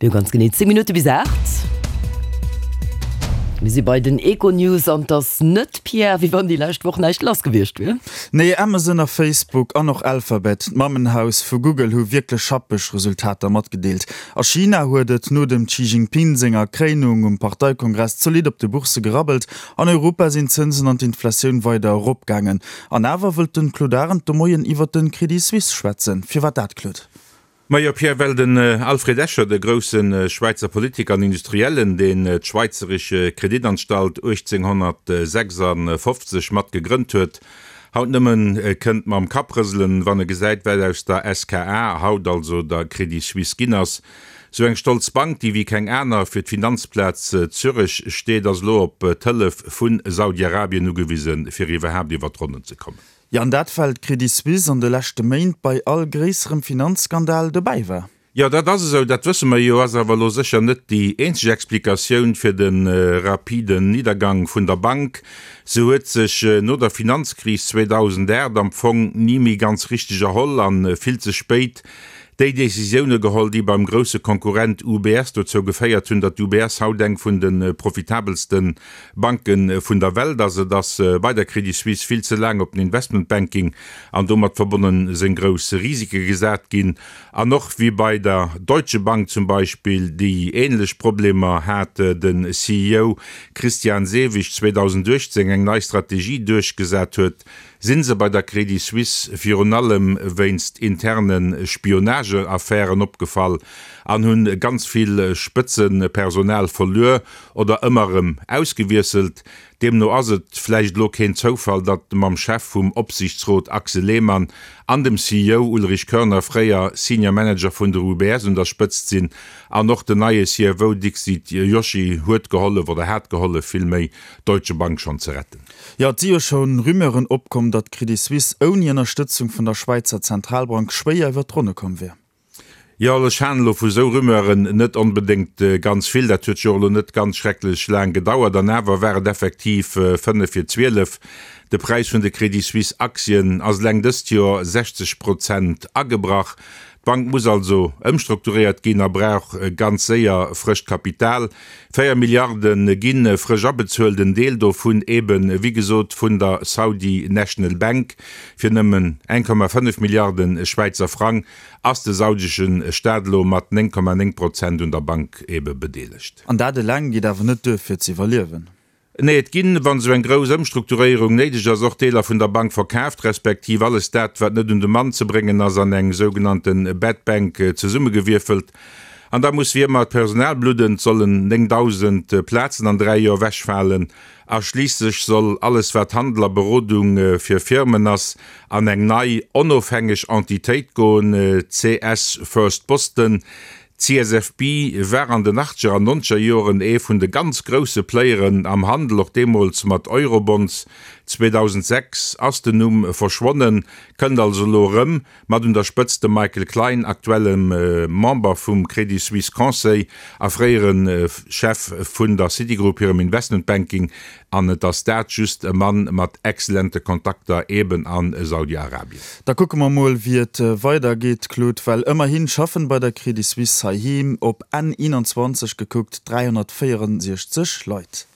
Mir hu ganz genee 10 Minutte bis 8. Mir si bei den Econews an 't ass net, Pierre, wéi wann déi lescht Woch näischt lass gewiescht wier. Nee, Amazon a Facebook an och Alphabet, d'Mammenhaus vu Google, hu wierklech schappeg Resultater matgedeelt. A China huet et no dem Xi Jinping senger Kréinung um Parteikongress zolidd op de Boursse gerabbelt. An Europa sinn d'Zënsen an d'Inflatioun weider eropgaangen. An awer wëllt de Claude Arend de Moien iwwert de Credit Suisse schwätzen. Firwat dat, Claude? Majo Pierre, well den Alfred Escher, de grousse Schwäizer Politiker an Industriellen, deen d'Schweizerische Kreditanstalt 1856 mat gegrënnt huet, haut nëmmen kënnt mam Kapp rëselen, wann e gesäit, wat aus der SKA, haut also der Credit Suisse, ginn ass. Sou eng stolz Bank, déi wéi keng aner fir d'Finanzplaz Zürech steet, ass elo op d'Hëllef vu Saudi-Arabien ugewisen, fir iwwerhaapt iwwer d'Ronnen ze kommen. Jo, an dat well d'Credit Suisse an de leschte Méint bei all gréisserem Finanzskandal dobäi war. Jo, dat ass esou, dat wësse mer jo, ass awer elo sécher net déi eenzeg Explikatioun fir de rapiden Niddergang vun der Bank. Se huet sech no der Finanzkris 2008 am Fong ni méi ganz richteg erholl a vill ze spéit déi Decisioune geholl, déi beim grousse Konkurrent UBS dozou geféiert hunn, datt d'UBS haut eng vun de profitabelste Banke vun der Welt ass. Et ass bei der Credit Suisse vill ze laang op den Investmentbanking an domat verbonne seng grouss Risike gesat ginn. An och wéi bei der Deutsche Bank zum Beispill, déi änlech Problemer hat, de CEO Christian Sewig 2018 eng nei Strategie duerchgesat huet, Sinn se bei der Credit Suisse virun allem wéinst interne Spionageaffären opgefall an hunn ganz vill Spëtzepersonal verluer oder ëmmer erëm ausgewiesselt. Deemno ass et vläicht elo keen Zoufall, datt mam Chef vum Opsiichtsrot Axel Lehmann an dem CEO Ulrich Körner fréier Senior Manager vun der UBS un der Spëtzt sinn an och den neie CFO Dixit Joshi huet gehollef oder hat gehollef villméi d'Deutsche Bank schonn ze retten. Jo, et si jo scho Rumeuren opkomm, datt d'Credit Suisse ouni Ënnerstëtzung vun der Schwäizer Zentralbank schwéier iwwer d'Ronne komm wier. Jo, ech halen elo vu sou Rumeuren net onbedéngt ganz vill. Dat huet jo och elo net ganz schrecklech laang gedauert. An awer war et effektiv 5 vir 12. De Präis vun de Credit Suisse Aktien ass eleng dëst Joer 60 Prozent agebrach. D'Bank muss also ëmstrukturéiert ginn a brauch ganz séier frëscht Kapital. 4 Milliarde gi frësch abezuelt, en Deel dovun eben, wéi gesot, vun der Saudi National Bank. Fir nëmmen 1,5 Milliarde Schwäizer Frang ass de saudesche Staat elo mat 9,9 Prozent un der Bank ebe bedeelegt. An dat eleng geet awer net duer fir z'iwwerliewen. Nee, et ginn, wann esou eng grouss Ëmstrukturéierung néideg ass, och Deeler vun der Bank verkaaft, respektiv alles dat, wat net un de Mann ze bréngen ass, an eng sougenannte Bad Bank zesummegewierfelt. An da muss wéi ëmmer d'Personal bludden, et sollen 9.000 Plazen an 3 Joer ewechfalen. A schliisslech soll alles, wat Handel a Berodung fir Firmen ass, an eng nei, onofhängeg Entitéit goen, CS First Boston. D'CSFB war an den achtzeger an nonzeger Joren ee vun de ganz grousse Playeren am Handel, och deemools mat Eurobonds. 2006 ass den Numm verschwonnen, kënnt also elo erëm, mat un der Spëtzt dem Michael Klein, aktuellem Member vum Credit Suisse Conseil a fréiere Chef vun der Citigroup hirem Investment Banking. An et ass dat just e Mann mat excellente Kontakter eben a Saudi-Arabien. Da kucke mer mol wéi et weider geet, Claude, well ëmmerhin schaffen bei der Credit Suisse heiheem op Enn 21 gekuckt 364 Leit.